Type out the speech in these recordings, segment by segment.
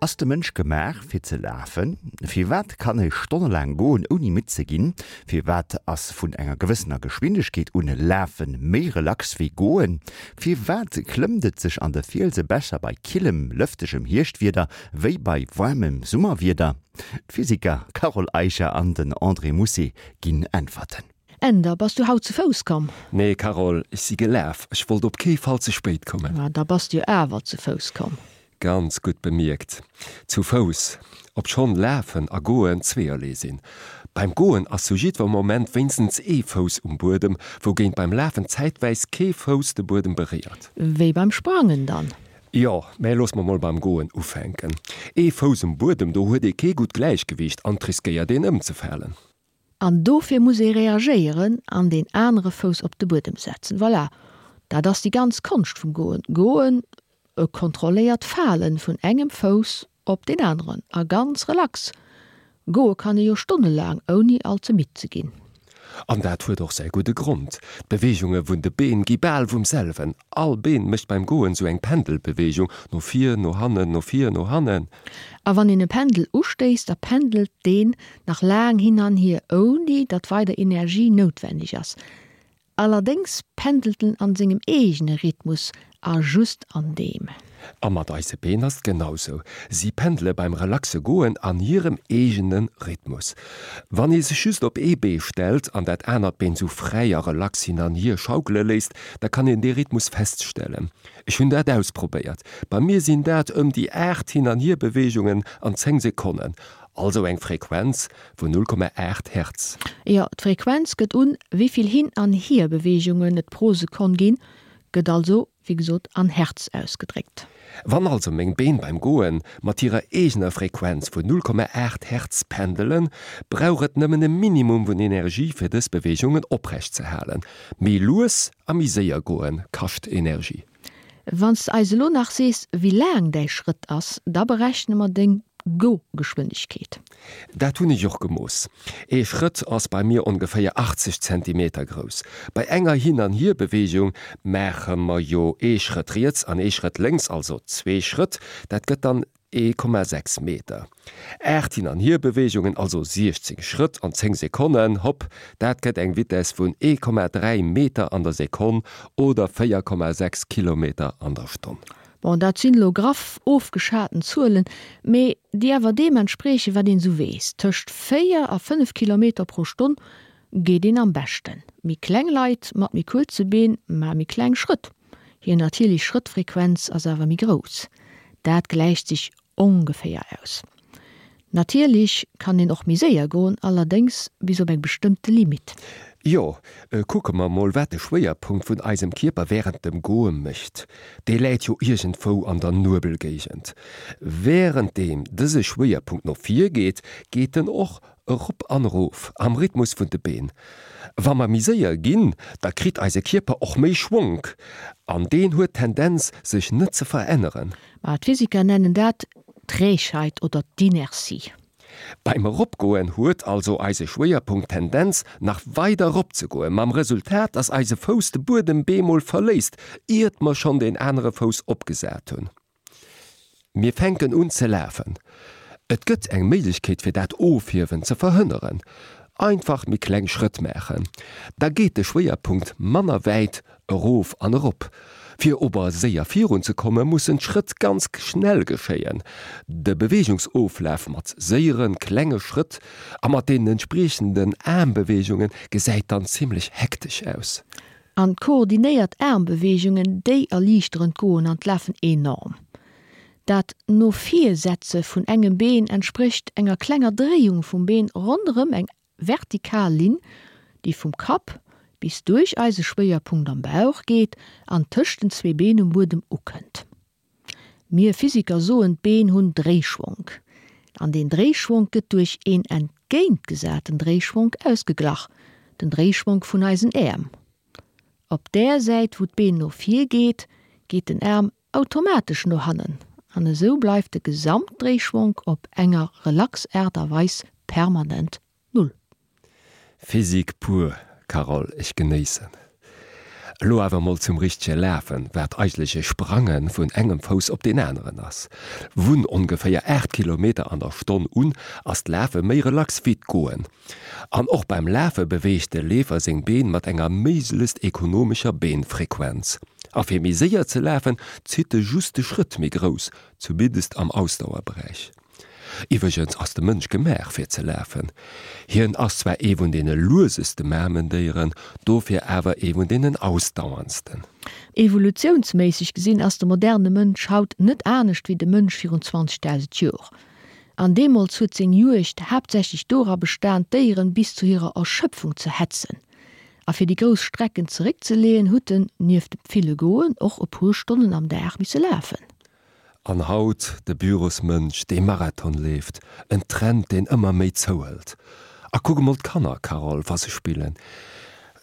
Ass de Mënsch gemaach fir ze lafen? Firwat kann e stonnelaang goen ouni midd ze ginn? Firwat ass vun enger gewëssener Geschwindegkeet un Lafe méi relax wéi goen? Firwat klëmmt et sech an de Fielse besser bei killem, lëftegem Hierschtwieder wéi bei waarmem Summerwieder? D'Physiker Carole Eicher an den André Mousset ginn Äntwerten. Änder, bass du haut zu Fouss komm? Nee, Carole, ech si gelaf. Ech wollt op kee Fall ze spéit kommen. Ma da bass du jo awer zu Fouss komm. Ganz gutt bemierkt. Zu Fouss, obschonn Lafen a Goen zweeërlee sinn. Beim Goen ass zu jiddwer Moment wéinstens ee Fouss um Buedem, wougéint beim Lafen zäitwäis kee Fouss de Buedem beréiert. Wéi beim Sprangen dann? Jo, mä looss mer mol beim Goen ufänken. Ee Fouss um Buedem, do huet ee kee gutt Gläichgewiicht an 't riskéiert een ëmzefalen. An dofir muss ee reagéieren an deen anere Fouss op de Buedem setzen. Voilà, dat ass déi ganz Konscht vum Goen. Goen, e kontrolléiert Falen vun engem Fouss op deen aneren a ganz relax. Goe kann ee jo stonnelaang, ouni all ze midd ze ginn. An dat huet och säi gudde Grond, D'Beweegunge vun de Been gi bal vum selwen. All Been mécht beim Goen sou eng Pendelbeweegung, no vir, no hannen, no vir, no hannen. A wann een e Pendel ustéisst, da pendelt deen nach laang hin an hier, ouni datt weider Energie noutwenneg ass. Allerdéngs pendelt en an sengem eegene Rhythmus a just an deem. A mat eise Been ass et genau sou, si pendele beim relaxe Goen an hirem eegene Rhythmus. Wann ee sech just op ee Bee stellt an dat anert Been sou fräi a relax hin an hier schaukele léisst, da kann een dee Rhythmus feststellen. Ech hunn dat ausprobéiert. Bei mir sinn dat ëm déi 8 Hin an Hier-Beweegungen an 10 Sekonnen, also eng Frequenz vun 0,8 Hertz. Jo, d'Frequenz gëtt un, wéi vill Hin an Hier-Beweegungen et pro Sekonn ginn, gëtt also, wéi gesot, an Hertz ausgedréckt. Wann also meng Been beim Goen mat hirer eegener Frequenz vun 0,8 Hertz pendelen, brauch et nëmmen e Minimum vun Energie fir dës Beweegungen oprecht ze halen. Méi lues a méi séier goen kascht Energie. Wann s de eis elo nach sees, wéi laang däi Schrëtt ass, da berechne mer deng Go-Geschwindegkeet. Dat hunn ech och gemooss. Ee Schrëtt ass bei mir ongeféier 80 Zentimeter grouss. Bei enger Hin an Hier-Beweegung maache mer jo ee Schrëtt riets an ee Schrëtt lénks, also zwee Schrëtt. Dat gëtt dann 1,6 Meter. 8 Hin an Hier-Beweegungen, also 16 Schrëtt an 10 Sekonnen, hopp, dat gëtt eng Vitess vun 1,3 Meter an der Sekonn oder 4,6 Kilometer an der Stonn. Bon, dat sinn elo graff ofgeschaten Zuelen, mee déi awer deem entspriechen, wat een esou weess. Tëscht 4 a 5 Kilometer pro Stonn geet een am beschten. Méi kleng Leit mat méi kuerze Been maache méi kleng Schrëtt. Hir natierlech Schrëttfrequenz ass awer méi grouss. Dat gläicht sech ongeféier aus. Natierlech kann een och méi séier goen, allerdéngs bis op eng bestëmmte Limite. Jo, kucke mer mol wat de Schwéierpunkt vun eisem Kierper wärend dem Goe mécht. Dee läit jo iergendwou an der Nuebelgéigend. Wärenddeem dëse Schwéierpunkt no vir geet, geet en och Erop an erof, am Rhythmus vun de Been. Wa mer méi séier ginn, da kritt eise Kierper och méi Schwonk, an deen huet d'Tendenz, sech net ze veränneren. Ma d'Physiker nennen dat d'Trägheit oder d'Inertie. Beim Eropgoen huet also eise Schwéierpunkt d'Tendenz, nach weider eropzegoen, mam Resultat, dass eise Fouss de Buedem bemol verléisst, iert mer schonn deen anere Fouss opgesat hunn. Mir fänken un ze lafen. Et gëtt eng Méiglechkeet fir dat Ofhiewen ze verhënneren, einfach méi kleng Schrëtt maachen, da geet de Schwéierpunkt manner wäit erof an erop. Fir ober séier virun ze komme mussen d'Schrëtt ganz schnell geschéien. De Beweegungsoflaf mat séiere klenge Schrëtt a mat deenen entspriechenden Aarmbeweegunge gesäit dann zimmlech hektesch aus. An koordinéiert Aarmbeweegungen, déi erliichteren d'Goen an d'Lafen enorm. Dat No-vir-Setze vun engem Been entsprécht enger klenger Dréiung vum Been ronderëm eng vertikal Linn, déi vum Kapp bis duerch eise Schwéierpunkt am Bauch geet an tëscht den zwee Been um Buedem ukënnt. Mir Physiker soen, d'Been hunn Dréischwonk. An deen Dréischwonk gëtt duerch een entgéintgesaten Dréischwonk ausgeglach, den Dréischwonk vun eisen Äerm. Op där Säit wou d'Been no vir geet, geet den Aarm automatesch no hannen an esou bleift de Gesamtdréischwonk op enger relax Aart a Weis permanent Null. Physik pur, Carole, ech genéissen. Elo awer mol zum richtege Lafen, wat eigentlech e Sprange vun engem Fouss op deen aneren ass. Vun ongeféier 8 Kilometer an der Stonn un ass d'Lafe méi relax wéi d'Goen. An och beim Lafe beweegt de Leefer seng Been mat enger méiglechst ekonomescher Beenfrequenz. A fir méi séier ze lafen, zitt e just de Schrëtt méi grouss, zumindest am Ausdauerberäich. Iwwregens ass de Mënsch gemaach fir ze lafen. Hien ass zwar ee vun deene lueseste Mamendéieren, dofir awer ee vun deenen ausdauerndsten. Evolutiounsméisseg gesinn ass de moderne Mënsch haut net anescht wéi de Mënsch virun 20.000 Jor. An deemools huet seng Juegd haaptsächlech dora bestan, d'Déieren bis zu hirer Erschöpfung ze hetzen. A fir déi grouss Strecken zeréckzeleeën, hutt en, nieft dem ville Goen, och e puer Stonnen am Dag misse lafen. An haut de Bürosmënsch, dee Marathon leeft, en Trend, deen ëmmer méi zouhëlt. A kuck emol d'Kanner, Carole, wa se spillen.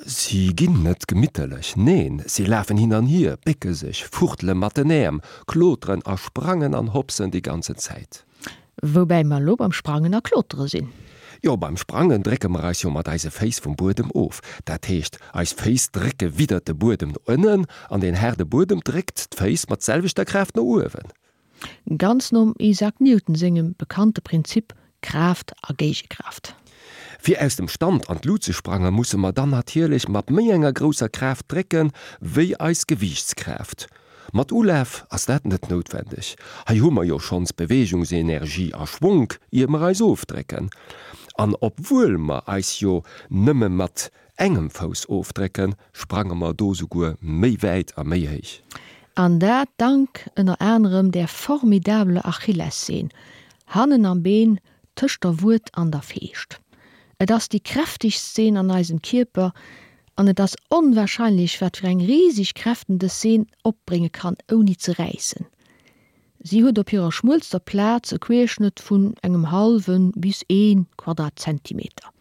Si ginn net gemitterlech, neen, si lafen hin an hier, bécke sech, fuchtele mat den Äerm, kloteren a sprangen an hopsen déi ganzen Zäit. Woubäi mer elo beim Sprangen a Klotere sinn. Jo, beim Sprangen drécke mer eis jo mat eise Féiss vum Buedem of. Dat heescht, eis Féiss drécke widdert de Buedem no ënnen an deen haarde Buedem dréckt d'Féiss mat selwechter Kraaft no uewen. Ganz nom Isaac Newton sengem bekannte Prinzip Kraaft a Géigekraaft. Fir aus dem Stand an d'Lut ze sprange musse mer dann natierlech mat méi enger grousser Kraaft drécke wéi eis Gewiichtskraaft. Mat Ulaf ass dat net noutwendeg, hei hu mer jo schonns Beweegungsenergie a Schwonk ier mer eis ofdrécken. An obwuel mer eis jo nëmme mat engem Fouss ofdrécken, sprange mer do souguer méi wäit a méi héich. An dat dank ënner anerem där formidabeler Achillesseen hannen am Been tëscht der Wued an der Feescht. Et ass déi kräftegst Seen an eisem Kierper an et ass onwahrscheinlech wat fir eng riseg Kräften dës Seen opbrénge kann ouni ze räissen. Si huet op hirer schmuelster Plaz e Querschnëtt vun engem hallwe bis ee Quadratzentimeter.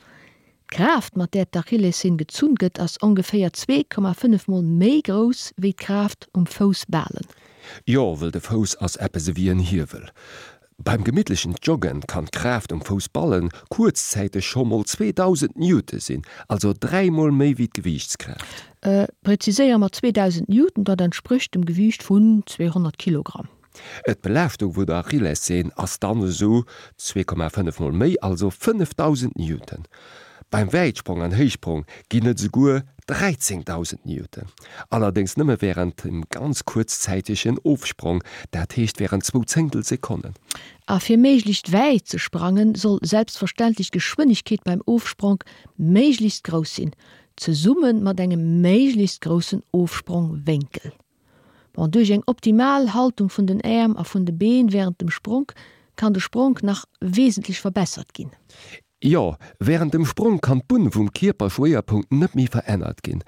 D'Kraaft mat där d'Achillesseen gezunn gëtt ass ongeféier 2,5 mol méi grouss wéi d'Kraaft um Foussbalen. Jo, wëll de Fouss ass eppes ewéi en Hiewel. Beim gemittlechen Joggen kann d'Kraaft um Foussballen kuerzzäiteg scho mol 2000 Newton sinn, also dräimol méi wéi d'Gewiichtskraaft. Preziséiere mer 2000 Newton, dat entsprécht dem Gewiicht vun 200 Kilogramm. D'Belaaschtung vun der Achillesseen ass dann esou 2,5 mol méi, also 5000 Newton. Beim Wäitsprong an Héichsprong ginn et esouguer 13.000 Newton, allerdéngs nëmme wärend dem ganz kuerzzäitegen Ofsprong, dat heescht wärend zwou Zéngtel Sekonnen. A fir méiglechst wäit ze sprangen, soll selbstverständlech d'Geschwënnegkeet beim Ofspronk méiglechst grouss sinn, zesumme mat engem méiglechst groussen Ofsprongwénkel. Bon, duerch eng optimal Haltung vun den Äerm a vun de Been wärend dem Spronk kann de Spronk nach wesentlech verbessert ginn. Jo, wärend dem Sprong kann d'Bunn vum Kierperschwéierpunkt net méi verännert ginn.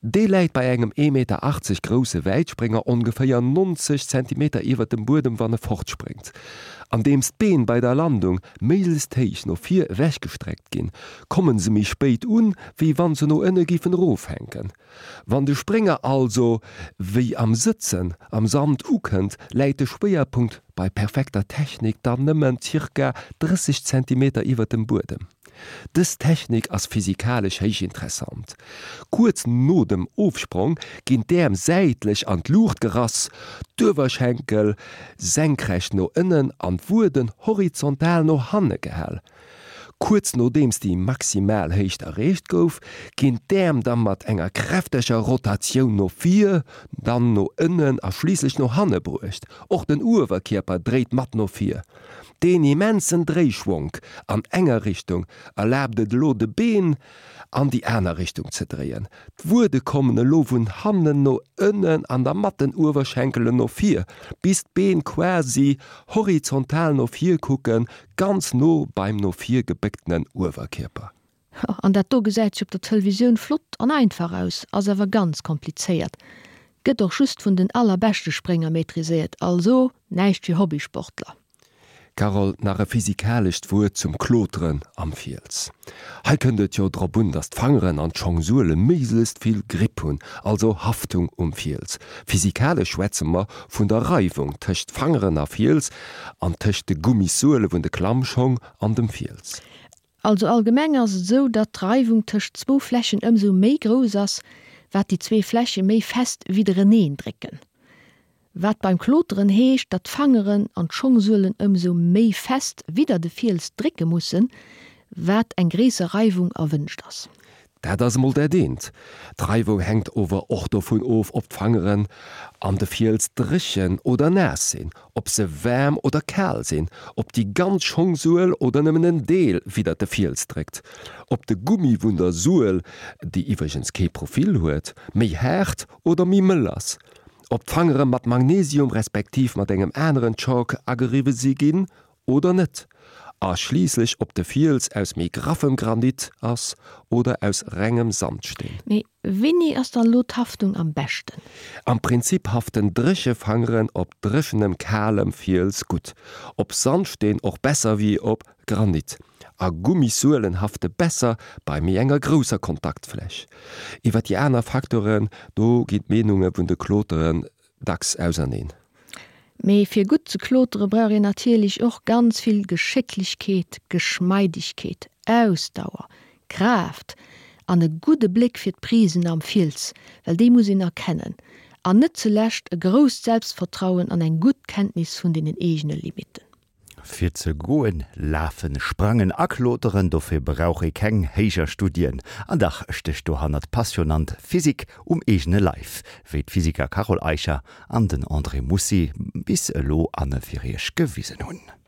Dee läit bei engem ee Meter 80 grousse Wäitsprénger ongeféier 90 Zentimeter iwwert dem Buedem wann e fortspréngt. Andeems d'Been bei der Landung méiglechst héich no vir ewechgestreckt ginn, kommen se méi spéit un, wéi wann se no ënne géifen erofhänken. Wann de Sprénger also wéi am Sëtzen am Sand ukënnt, läit de Schwéierpunkt bei perfekter Technik dann nëmmen zirka 30 Zentimeter iwwert dem Buedem. Dës Technik ass physikalesch héich interessant. Kuerz no dem Ofsprong ginn d'Äerm säitlech an d'Luucht gerass, d'Uewerschenkel senkrecht no ënnen an d'Wueden horizontal no hanne gehal. Kuerz nodeems déi maximal Héicht erreecht gouf, ginn d'Äerm da mat enger kräfteger Rotatioun no vir, dann no ënnen a schliisslech no hanne bruecht. Och den Uewerkierper dréit mat no vir. Deen immensen Dréischwonk an enger Richtung erlaabt et elo de Been an déi aner Richtung ze dréien. D'Wuede kommen elo vun hannen no ënnen an da mat den Uewerschenkelen no vir, bis d'Been quasi horizontal no vir kucken, Ganz no beim no vir gebécktenen Uewerkierper. An dat do gesäit sech op der Tëlevisioun flott an einfach aus, ass awer ganz komplizéiert. Gëtt och just vun den allerbeschte Sprénger maîtriséiert, also näischt fir Hobbysportler. Carole, nach e physikalescht Wuert zum Kloteren am Fiels. Hei kënnt et jo drop un, dass d'Fangeren an d'Schongsuele méiglechst vill Gripp hunn, also Haftung um Fiels. Physikalesch schwätze mer vun der Reiwung tëscht Fangeren a Fiels an tëscht de Gummissuele vun de Klammschong an dem Fiels. Also allgemeng ass et esou, datt d'Reiwung tëscht zwou Flächen ëmsou méi grouss ass, wat déi zwee Fläche méi fest widdereneen drécken. Wat beim Kloteren heescht, datt d'Fangeren an d'Schongsuelen ëmsou méi fest widder de Fiels drécke mussen, wat eng gréisser Reiwung erwënscht ass. Dat ass emol dat eent. D'Reiwung hänkt ower och dovun of, ob d'Fangeren an de Fiels dréchen oder naass sinn, ob se waarm oder kal sinn, ob déi ganz Schongsuel oder nëmmen en Deel widder de Fiels dréckt, ob de Gummi vun der Suel, déi iwwregens kee Profil huet, méi haart oder méi mëll ass, ob d'Fangere mat Magnesium respektiv mat engem aneren Chalk ageriwwe si ginn oder net, a schliisslech ob de Fiels aus méi graffem Granit ass oder aus rengem Sandsteen. Mee wéini ass dann elo d'Haftung am beschten? Am Prinzip haften dréche Fangeren op dréchenem, kalem Fiels gutt, op Sandsteen och besser wéi op Granit, a Gummissuelen hafte besser bei méi enger grousser Kontaktfläch. Iwwer déi aner Faktoren, do ginn d'Meenunge vun de Kloteren dacks auserneen. Mee fir gutt ze klotere brauch een natierlech och ganz vill Geschécklechkeet, Geschmeidegkeet, Ausdauer, Kraaft an e gudde Bléck fir d'Prisen am Fiels, well déi muss een erkennen, an net zulescht e grousst Selbstvertrauen an eng gutt Kenntnis vun deenen eegene Limitten. Fir ze goen, lafen, sprangen a kloteren, dofir brauch ee keng héijer Studien. An dach stécht dohannert passionant Physik um eegene Leif, wéi d'Physiker Carole Eicher an den André Mussi bis elo an fir iech gewisen hunn.